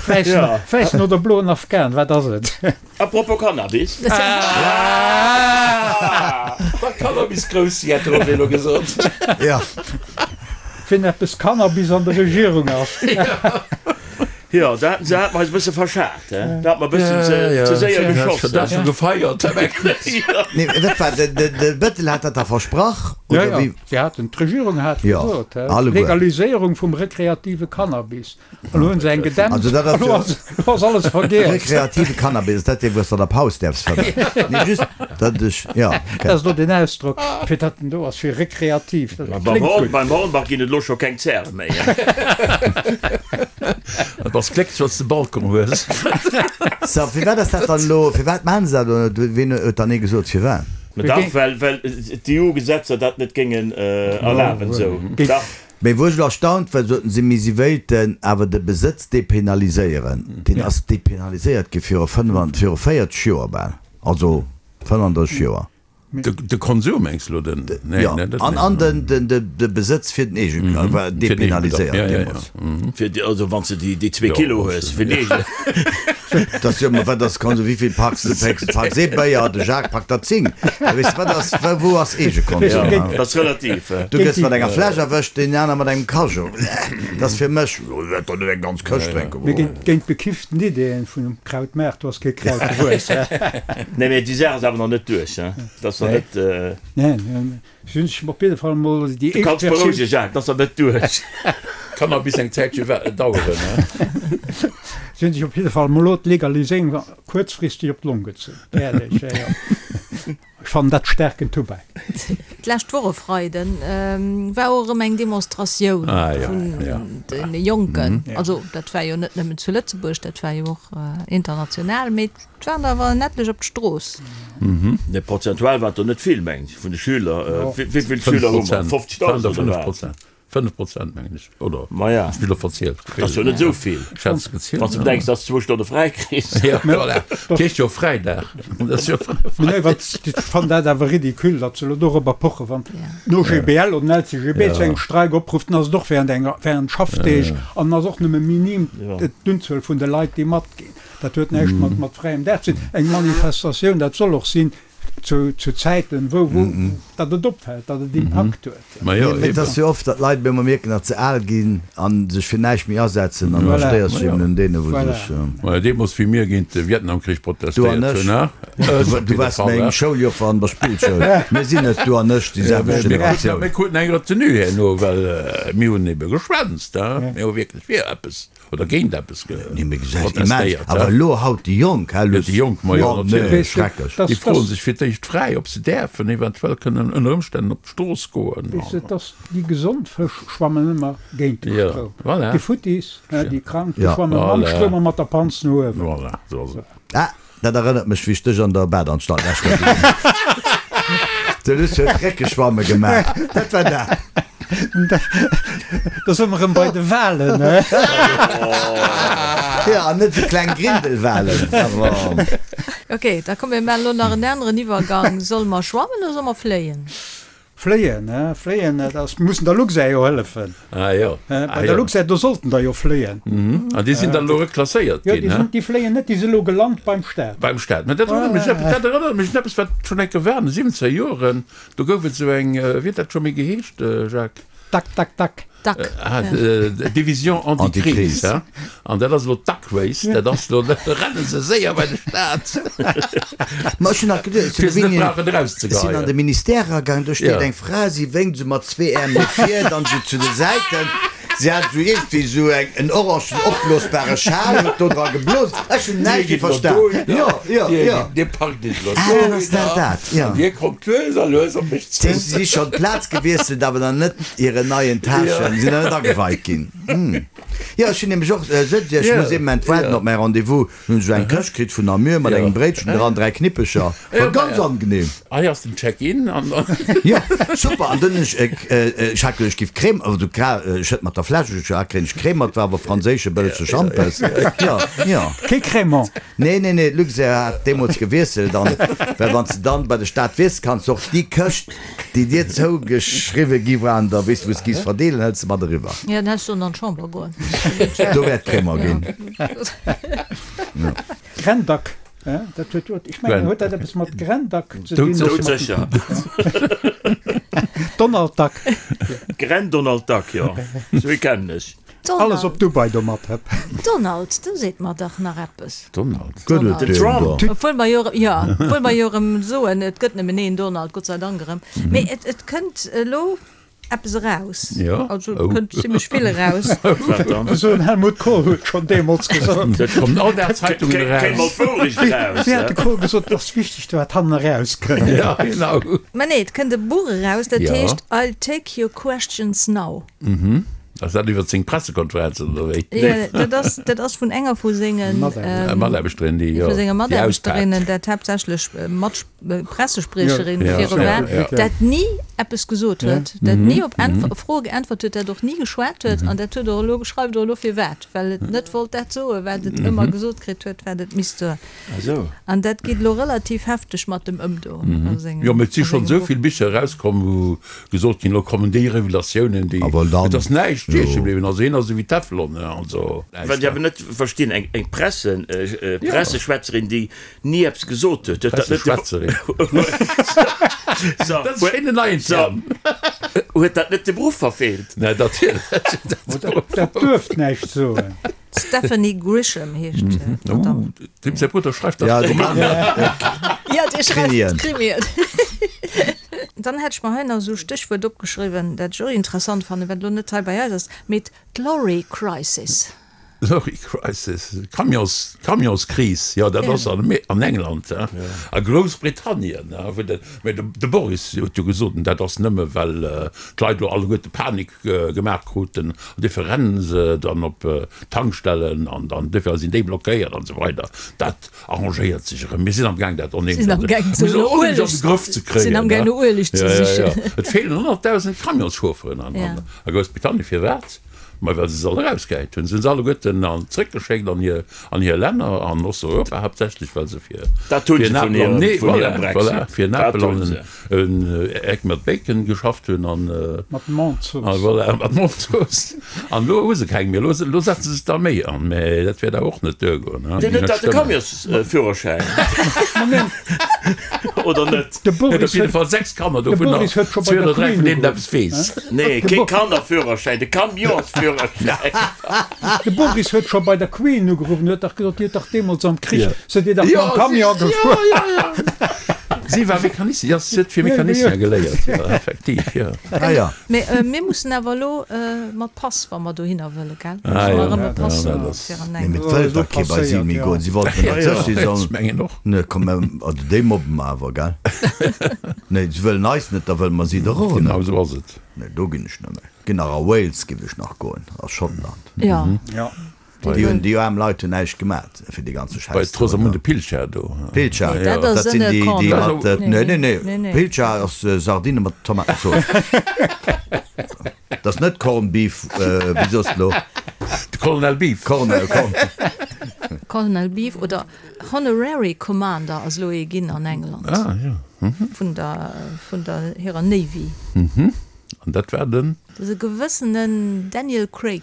Wäissen, wäissen oder bloen Afghan, wat ass et? A propos Cannabis. Wat Cannabis grouss si, hätt de Roger elo gesot. Ja. Wien eppes Cannabis an der Regierung ass. Jo, do haten se hat mer eis e bësse verschat, he? Do hat mer e bëssen ze, ze séier geschoss. Dat ass scho gefeiert. Nee, wat war, de, de, de Bettel hat dat da versprach, Ja, oder ja, wéi? si haten, d'Regierung hat Ja, gesot, he, alleguer. Legaliséierung vum rekreative Cannabis. An elo hunn se eng gedämpt, Also dat ass elo jo ass, elo ass alles vergiess. Rekreative Cannabis, ass dat dee wou s de an der Paus däerfs fëmmen? Nee, just datt ech, ja, Dat okay. ass elo den Ausdrock, fir datt en do ass, fir rekreativ. Dat Beim kléngt Horn, gutt. beim Hornbach ginn et elo scho keng Zäre méi, he? Du bass glécklech, wann s de Balcon hues. So, firwat ass dat dann elo, firwat maachen se dat elo net? Wien huet dann nee gesot, firwat? Ma dach, well, well d'EU-Gesetzer dat net géingen erlaben, esou. Dach. Mee wou ech elo erstaunt war, soten si, mee si wéilten awer de Besëtz depenaliséieren. Deen ass depenaliséiert gi viru 40 Joer bal, also 35 Joer. De Konsum mengs de elo? Den, nee, Jo, dat an, an den, den, de, de Besëtz fir den Eegen war depenaliséiert deemools. Fir déi, also wann s de déi, déi zwee Kilo hues, fir den Eegen. Dat ass jo, ma wat ass Konsum? Wéi vill packs de? Pécks, packs ee Béier, de Jacques packt der 10. Da weess de, wat ass, wou ass Eegekonsum? Ja, dat ass relativ. Du gëss mat enger Fläsch erwëscht, deen aner mat engem Cageot. Dat ass fir mech, jo, ech wäert der net eng ganz Këscht drénken. Mee géint, géint bekifften Ideeën vun dem Krautmaart, do ass kee Kraut gewuess. Nee, mee déi Saach ass awer nach net duerch, hein? Dat ass nach net. Nee, si hunn sech op jidde Fall emol déi Du éischt kanns Versioun. berouegen, Jacques, dat ass nach net duerch. Kann nach bis eng Zäitche daueren, hein? Si hunn sech op jidde Fall emol elo d'Legaliséierung kuerzfristeg op d'Long gezunn. Äerlech, jo, jo. Ech fannen dat staarken Tubak. D'lescht Woch e Freiden war och erëm eng Demonstratioun vun de Jonken. Also dat war jo net nëmmen zu Lëtzebuerg, dat war jo och international, mee et waren der awer en etlech op d'Strooss. Nee, prozentual waren et der net vill, mengen ech, vun de Schüler. Wéi vill Schüler hu mer? 50.000 oder wat? 5 Prozent mengen ech, oder? Maja. Ech hunn elo verzielt. Dat ass jo net esou vill. Ech hat es gezielt. Wann s de bedenks, dass s de zwou Stonne fräi kriss. Ja, voilà. Dat heescht jo Fräidag. Dat ass jo Mee nee, wat, ech fannen dat awer ridicule, datt se elo dorobber pochen. Wann den OGBL oder den LCGB zu engem Streik oprufft, dann ass et och während enger, während Schaffdeeg an ass och nëmme minim d'Unzuel vun de Leit, déi matginn. Dat huet näischt mat, mat fräiem Dag ze dinn. Eng Manifestatioun, dat soll och sinn, Zu Zäiten, wou, datt et opfält, datt et Impakt huet. Mee et ass jo oft, datt d'Leit op eemol mierken, datt se al ginn a sech fir näischt méi asetzen an da stéiers du eben un deene wou sech. Majo, deemools wéi mir géint de Vietnamkrich protestéiert hunn, ha? Du an ech. Du waars meng Schouljoffer an der Spillschoul. Mir sinn net du an ech déi selwecht Generatioun. Mir kruten eng Retenue herno, well mir hunn ebe geschwänzt, ha? Mir hu wierklech fir eppes. Oder géint eppes protestéiert. Awer elo haut déi Jonk, hä Luss? Déi Jonk, ma jo, natierlech. Schrecklech. Déi froe sech fir d'éischt fräi, ob se däerfen eventuell kënnen ënner Ëmstännen op d'Strooss goen. Weess de, dass déi gesond Fësch schwammen ëmmer géint de Stroum. Voilà. Déi Futtis, déi Krank, déi schwamme mam Stroum a mat der Panz no uewen. Voilà, esou ass et. Ah, Dat erënnert mech wéi ech dech an der Badanstalt lech gesinn hunn. De Luss huet Réckeschwamme gemaach. Dat war dat. Da si mer erëm bei de Walen, he? Jo, an net esou kleng Grindelwalen. Ok, da komm mir maachen elo nach en aneren Iwwergang. Solle mer schwammen oder solle mer fléien? Fléien, he, fléien, dat ass, mussen der Luxair jo hëllefen. Ah jo. He, bei der Luxair, do sollten der jo fléien. An déi sinn dann elo reklasséiert ginn, he? Jo, déi sinn, déi fléien net, déi si elo gelant beim Staat. Beim Staat. Mä dat erënnert mech, dat erënnert mech un eppes, wat schonn eng Kéier war an de siwwenzeger Joren. Do gouf et esou eng, wéi huet dat scho méi geheescht, Jacques? Dac, dac, dac. Duck. Ah, Division anti-crise, hein? An dat ass elo d'Duck Race, dat ass elo, da renne se séier bei de Staat. Ma ech hunn nach geduecht, Fir se net brauchen ech sinn an erauszegeheien. de Ministère eragaangen, do steet Ja. eng Fra, si wénkt esou mat zwee Äerm no vir, dann esou zu de Säiten. Si hat esou iergendwéi esou eng, en orangen opblosbare Schal, huet do dra geblosen. Ech hunn Dir näischt gitt elo verstan. dohinner, Jo, jo, dir jo. gitt, dir packt iech elo Ah, dann ass dat dohinner dat, jo. an dir kommt lues a lues op mech Si zu. si schonn d'Plaz gewiesselt, awer nach net hiren neien Täschen, sinn nach net ageweit ginn. Jo, ech hunn nämlech och, sot si, ech muss ee Moment waarden op mäi Rendez-vous. Hunn ech eng Këscht kritt vun Namur mat engem Bréitchen dran, 3 Knippecher. War ganz angenehm. Hei ass den Check-in an dann. Jo, super. An dunn hunn ech, ech hat geduecht, ech giff Crème, also ech huet mat der Fläsch, ech hat kréien ech Crème mat, war awer franséische bëllege Schampes. Jo, jo. Kee Crémant. Nee, nee, nee, d'Luxair hat deemools gewiesselt an, well wann s de dann bei de Staat wiesst, kanns de och déi Këscht, déi dir zougeschriwwe gi war an der, weess de, wou s de giss verdeelen, hëls de mat eriwwer. Jo, dann häss sollen an d'Chamber goen. Do wär d'Crémant ginn. Grendack, dat huet jo, ech mengen, huet dat eppes mat Grendack ze dinn? Doudsécher. Donald Duck. Gren-Donald Duck, jo, esou ee kennen ech. Alles op Dubai domat, hëpp. Donald, do seet mer dach nach eppes. Donald. Gëtt et Den deen Trump. do? Obwuel mer jo, jo, obwuel mer jo erëm soen, et gëtt nëmmen een Donald, Gott sei Dank erëm. Mee et, et kënnt elo eppes eraus. Jo. Also et Oh. kënnt zimlech vill eraus. Wat dann? Esou en Helmut Kohl huet schonn deemools gesot. Dat kommen all Dag Zeitungen Kéim eraus. mol d'Wourecht eraus, Wéi hat de hä? Kohl gesot, et ass wichteg, wat hannen erauskënnt. Ja, genau. Mä nee, et kënnt e Buch eraus, dat Jo. heescht I'll take your questions now. Ass dat iwwer seng Pressekonferenzen oder wéi? Jo, dat ass, dat ass vun enger vu sengen Mataarbechterinnen, déi vu senge déi Mataarbechterinnen, auspaakt. dat haaptsächlech Mat Pressespriecherin Ja, viru ja, war, ja. dat ni eppes gesot huet, dat ni op Äntw Froe geäntwert huet, dat och ni geschwat huet an dat huet och elo, schreift och elo firwat, well et net wollt dat soen, wat et ëmmer gesot kritt huet, wat et misst soen. An dat geet elo relativ hefteg mat dem ëm do a sengem. Jo, mee et si a schonn sengem esou Buch. vill Bicher erauskomm, wou gesot ginn, elo kommen déi Revelatiounen, déi, Awer dann, et ass näischt jo. stieche bliwwen. Also hien ass esou wéi Teflon, also. Wat ech awer net verstinn, eng eng Presse, Presseschwätzerin, déi ni eppes gesot huet, huet dat net de. Presseschwätzerin. So, Dat ass schéin en neien Term. Huet dat net de Beruff verfeelt? Nee, natierlech. Dat duerft näischt soen. D'Stephanie Grisham heescht d'Madame. Oh, dem säi Brudder schreift Ja, dach de Mann. Ja, dee schreift Krimien. Krimien. Dann hätt ech mer hei nach esou e Stéchwuert opgeschriwwen, dat ech och interessant fannen, wat elo net hei bei eis ass, mee d'Lorry Crisis. Lorry Crisis, Camions, Camionskris, jo, dat ass an an England, hein, a Groussbritannien, hein, wou de, mä de, de Boris huet jo gesot, dat ass nëmme well d'Leit elo alleguerte Panik gemaach kruten, an duerfir rennen se dann op d'Tankstellen an dann duerfir sinn déi blockéiert an esou weider. Dat arrangéiert sech erëm. Mir sinn am Gaang dat Sinn am Gaang onheemlech no an Ueleg de Grëff ze kréien. Sinn am Gaang no Ueleg ze sichen. Et feelen 100.000 Camionschaufferen an a Groussbritannien. Firwat? Ma well se se all erausgehäit hunn. Se hunn se alleguerten an zréckgeschéckt an hir an hir Länner, an Osteuropa haaptsächlech, well se fir Dat hunn fir se en vun Apel an hirem nee vun voilà, hirem voilà, Brexit. fir en Dat Apel hunn an se. en Eck mat Bacon geschafft hunn an Mat Mondzooss. a voilà, mat Mondzooss. An elo hu se keng méi. Elo elo setze se d'Arméi an, mä dat wäert awer och net duergoen, hein, Deen déi huet net dach de stëmmen. Camionsführerschäin, oder net? De Huet op Boris jidde huet Fall 6 Kanner, de dovunner Boris huet scho bei zwee der oder dräi Queen vun deenen ugeruff, eppes weess. Nee, De kee Bo Kannerführerschäin, de Camionsführerschäin. De Boris huet scho bei der Queen ugeruff an huet dach gesot, Dir hutt dach deemools am Krich, Ja. sidd Dir dach Ja, mam si, Camion ja, gefuer. ja, ja. Si war Mecanicien, ja, si huet fir Mecanicien geléiert, jo, effektiv, jo. Ah ja. Mee mir mussen awer elo mat Pass, wa mer dohinner wëlle, gell? Ah Musse ja, mer erëm e ja, Pass dat hunn ass. fir an Nee, eng. mee et wëllt dach kee bei si méi goen. Si wollten Ja, dat ja, sech, si ech sollen. mengen och. Nee, komm, mä also déi mobbe mer awer, gell? Nee, si wëllen eis net, da wëlle mer si dach och net. Genau esou ass et. Nee, do ginn ech net méi. Ginn nach a Wales giff ech nach goen, a Schottland. Ja. Ja. Déi hunn, déi aarm Leit hunn näischt gemat fir dee ganze Bei Schäiss do. d'Rosamunde Pilcher do. Pilcher, Nee, dat ass dat sinn en déi, déi Corned. mat, Nee, nee, nee, nee, nee, nee. Pilcher ass Sardine mat Tomatenzooss. Dat ass net Corned Beef, wéi soss de lo? De Colonel Beef. Colonel, Corn. Colonel Beef oder Honorary Commander ass elo ee ginn an England. Ah, jo. vun der, vun der hirer Navy. An dat war den? Dat ass e gewëssenen Daniel Craig.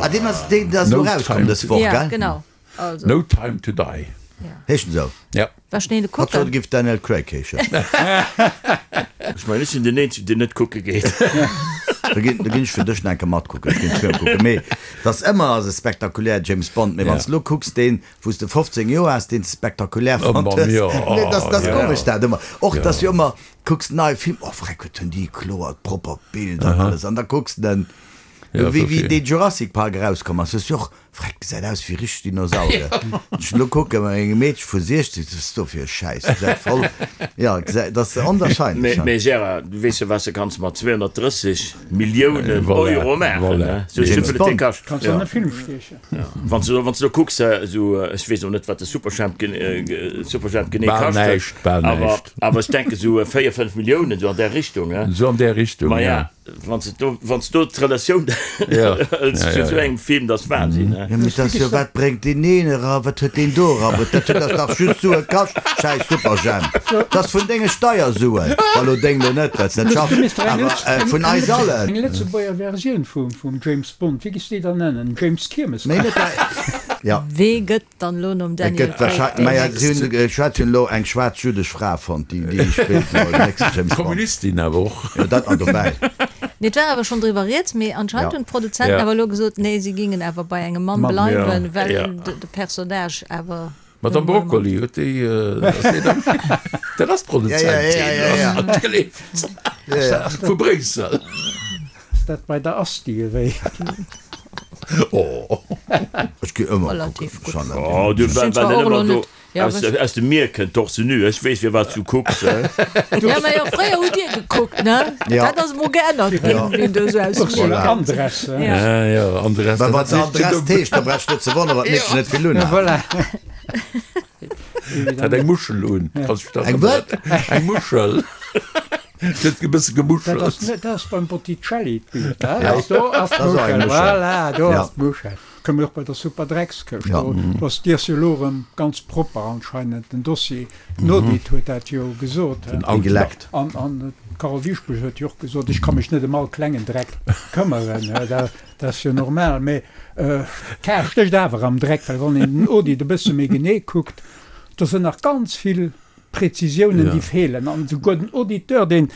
Ah, deen ass, deen ass elo erauskomm dës Woch, gell? Ja, genau. Also. No Time to Die. Heescht en esou? Ja. War schnell Hatt sot, kucken. e giff Daniel Craig heeschen. Ech mengen, ech sinn den Eenzegen, deen net kucke geet. Da ginn, da ginn ech fir dech nach eng Kéier matkucken. Ech ginn de Film kucken. Mee et ass ëmmer ass e spektakulär James Bond. Mee wann s de elo kucks, deen, wou s de 15 Joer has, deen s de spektakulär Oh, fonnt Mann, hues. jo. Nee, dat ass, dat ass Ja. komesch dat ëmmer. Och, Ja. dass jo ëmmer, kucks nei Film, oh freck, wat hunn déi kloert, propper Bild an alles. An da kucks de den, Ja, wéi, wéi verstehe. dee Jurassic Park erauskomm ass, hues du och Freck, gesäit aus wéi richteg Dinosaurier. Ech elo kucken, eng Meedche vu 60, wat ass do fir e Schäiss, gesäit voll, jo, gesäit, dat ass onwahrscheinlech. Mee Gérard, du weess jo wat s de kanns mat 230 Milliounen Voilà, Euro maachen, voilà. ne? Sou James vill et dee Bond. kascht. Kanns an e Film stiechen. Wann s du, wann s du do kucks, esou, ech weess och net wat de Superjhemp, Superjhemp genee Bal kascht huet, näischt, bal awer, näischt. awer ech denke sou 4, 5 Milliounen, sou an där Richtung, ne? Sou an där Richtung, Ma ja. ja. Wann s du, wann s du d'Relatioun hëls zu esou engem Film, dat ass Wahnsinn, he? Jo, mee dat ass jo, wat bréngt deen een era, wat huet deen do erabruet, dat huet dach just Sue kascht, schäiss Superjhemp, dat ass vun denge Steiersuen, wa lo deng lo net, well s net schaffs, awer vun eis allen. Eng Lëtzebuerger Versioun vum James Bond, wéi giffs de déi dann nennen? James Kiermes? Méi net, jo. Wee gëtt Dann elo nom Et Daniel gëtt Craig wahrscheinlech, deen maja si hunn, nächsten. ech hat hunn elo eng schwaarz jüdesch Fra fonnt, déi déi spillt elo den nächsten James Bond. Kommunistin awer och. Jo, dat nach dobäi. Nee, et war awer schonn driwwer rieds, mee anscheinend Ja. hunn d'Produzenten Ja. awer elo gesot, nee, si gingen awer bei engem Mann Mann. bleiwen, Ja. well Ja. de de Personnage awer D'Madame nun emol e Mann. Broccoli huet déi, ass déi dann, dat ass Ja, ja, ja, ja, ja. d'Produzentin, hat geleeft, Ja, ja. vu Bréissel. Ass dat bei der Asti ewéi? Oh. Ech gi ëmmer Relativ kucken. gutt. Schon an Oh, du, Ech sinn well zwar well och en elo ëmmer do net, ja, aus, wech. aus dem Mier kënnt, torse nu. Ech weess, firwat s du kucks, he? Ja, mä jo, fréier hutt Dir gekuckt, ne? Ja. Dat ass emol geännert ginn, Ja. wien do esou aus dem Mier Ursula kënnt. Andress, he? Ja. Ja, ja, Andress, Well dat wann se heescht Andress jo heescht, da brauchst du net ze wonneren, wat d'Meedchen net vill Ja, unhat. voilà. Hat eng Muschel un. Kannst du dich Eng erënneren? wat? Eng Muschel. Huet e bësse Dat gemuschelt. ass net, dat ass beim Botticelli d'Bild, hè? Ja. Do ass Dat ass och eng d'Muschel, Muschel. voilà, do Ja. ass d'Muschel. Kënne mir och bei der Superdreckskëscht. Ja. Do do ass d'Iers jo elo erëm ganz propper anscheinend, den Dossier. Den Audit huet dat jo gesot, hè? Den Déi Audit. geleckt. An, an d'Carole Dieschbourg huet jo och gesot, ech ka mech net ëm all klengen Dreck këmmeren, hè? Dat, dat ass jo normal. Mee d'Kar stécht awer am Dreck, well wann een den Audit e bësse méi genee kuckt, do sinn nach ganz vill Prezisiounen, déi feelen. An esouguer den Auditeur, deen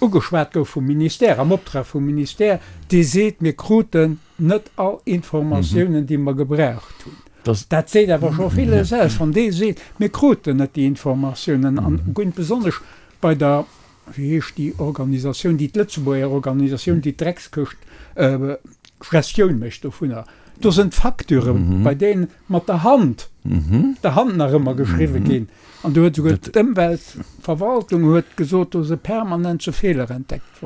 ugeschwat gouf vum Ministère, am Optrag vum Ministère, dee seet, mir kruten net all Informatiounen, déi mer gebraucht hunn. Dat seet awer scho villes aus, wann dee seet, mir kruten net déi Informatiounen. An besonnesch bei der, wéi heescht déi Organisatioun, déi d'Lëtzebuerger Organisatioun, déi d'Dreckskëscht Gestioun mécht dovunner, do sinn d'Facturë bei deenen mat der Hand, der Hand nach ëmmer geschriwwe ginn. An do huet esouguer d'Ëmweltverwaltung huet gesot, do si permanent sou Feeler entdeckt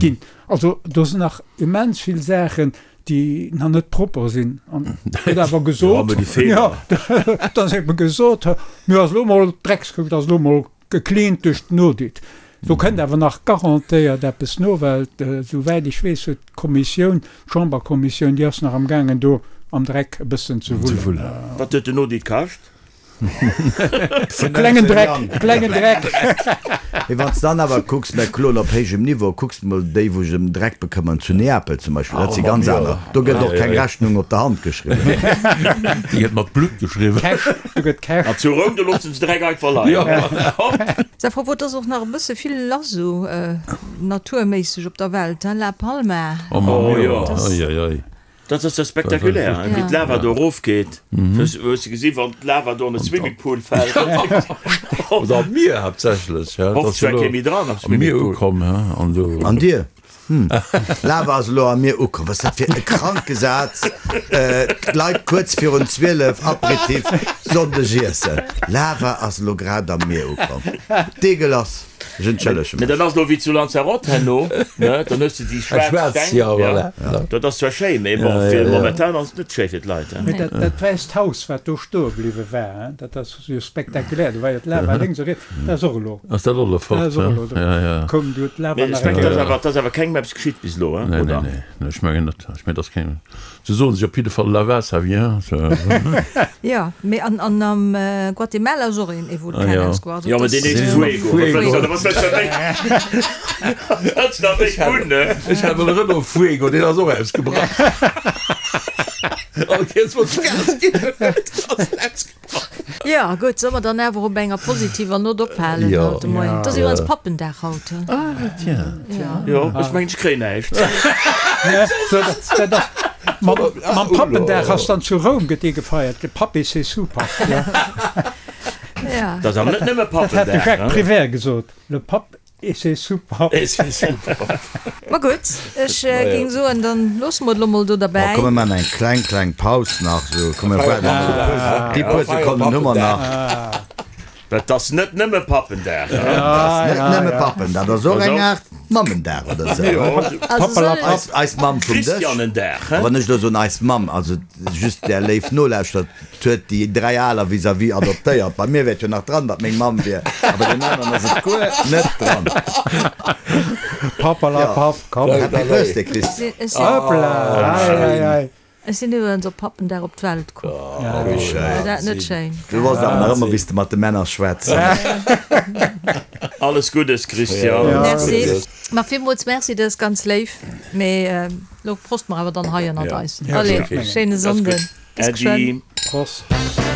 ginn. Also do sinn nach immens vill Saachen, déi nach net propper sinn. An gëtt awer gesot, jo, da ass ebe gesot, mir ass elo mol d'Dreckskuckt ass elo mol gecleant duerch den Audit. Do kënnt awer nach garantéiert eppes no, well esouwäit ech weess huet d'Kommissioun, d'Chamberkommissioun, déi ass nach am gaangen do am Dreck e bëssen ze wullen. Wat huet den Audit kascht? Klengen Dreck, klengen Dreck. Mee wann s de dann awer kucks, mä kloen op héijem Niveau, kucks de mol déi, wou sech ëm den Dreck bekëmmern, zu Neapel zum Beispill, dat si ganz aner. Do gëtt och keng Rechnung op der Hand geschriwwen. Déi gëtt mat Blutt geschriwwen. Cash, do gëtt Cash. An zu Roum, do loossen se Dreck einfach leien. Hopp! Sa propos, et ass och nach e bësse vill lass esou naturméisseg op der Welt, hein, La Palma. Oh Mann, Oh jo, jo. oi, oi, oi. Dat ass jo spektakulär, hein, wéi d'Lava do erofgeet. Hues de gesi wann d'Lava do an de Swimmingpool fält? Oder am Mier haaptsächlech, hein. Hofft zwar kee méi dran am Am Mier Swimmingpool. ukomm, hein, an do. An dir? Hm, Lava ass elo am Mier ukomm. Wat ass dat fir e kranke Saz? D'Leit kuerz virun 12, Aperitif, Sonndeg iessen. Lava ass elo grad am Mier ukomm. Deegelass. Ech entschëllege Mee mech. dat ass elo wéi zu Lanzarote herno, ne? Dann hues de déi schwaarz Steng. Ja, voilà. Dat ass zwar schéi, mee bon, fir momentan ass et net schéi fir d'Leit, hein. Mee dat, dat wäisst Haus, wat do stoe bliwwe war, hein, dat ass jo spektakulär. Do war jo d'Lava lénks a riets. Dat ass och elo. Ass dat och elo fort, Dat ass och elo do. Ja, ja. Koum du d'Lava Mee nach ech eng mengen, dat ass Kéier. awer, dat ass awer kengem eppes geschitt bis elo, hein, Nee, nee, oder? nee, nee, ech mengen net. Ech mengen, dat ass kengem. Se soen sech op jidde Fall Lava, ça vient. Jo, mee an am Guatemala ass och een Vulkan ausgebrach. Jo, mee deen heescht Fuego. Wat wëlls de méi? Wat wëlls de nach méi hunn, ne? Ech hat mol e Renault Fuego, deen ass och ausgebrach. All Kéiers wann ech Gas ginn hunn, ass en ausgebrach. Jo, gutt, solle mer dann awer op enger positiver Nott ophalen haut de Moien? Et ass iwwerens Pappendag haut, he? Ah, tiens. Jo, ech mengen, ech kréien näischt. Dat ass, mam Pappendag ass dann zu Roum gëtt dee gefeiert, de Pape et ses sous-papes. Ja. Dat ass awer net nëmme Dat hat de Pappendag, Jacques ne? Prévert gesot, Le Pape Et c'est super. Et c'est super. Ma gutt, ech géing soen, dann loosse mer et elo mol do Bon, derbäi. komm, mir maachen eng kleng, kleng Paus nach. Sou, komm, mir waarden nach e puer, déi puer Sekonnen hu mer nach. Dat ass net nëmme Pappendag, hein? Dat ass net nëmme Pappendag, dat ass och eng Aart Mammendag oder sou, hein? Also soll ech. Eis, eis Mamm vum Dësch. Christianendag, A hein? wann ech elo soen eis Mamm, also just där léif Nolauschterer, Huet déi 3 aler vis-à-vis adoptéiert. Bei mir wär et jo nach dran, datt meng Mamm wier, a bei den aneren ass et guer net dran. Papperlapapp, komm. Happy Birthday, Chris. Hoppla, ei, ei, ei. Ech sinn iwwerens op Pappendag op d'Welt komm. Wéi schéin. War dat net schéin? Du wosst awer nach ëmmer, wéi s de mat de Männer schwätz. Alles Guddes, Christian. Merci. Ma villmools merci, dat ass ganz léif. Mee lo proste mer awer dann hei ënnert eis. Allez, schéine Sonnden. Bis geschwënn. Äddi. Prost.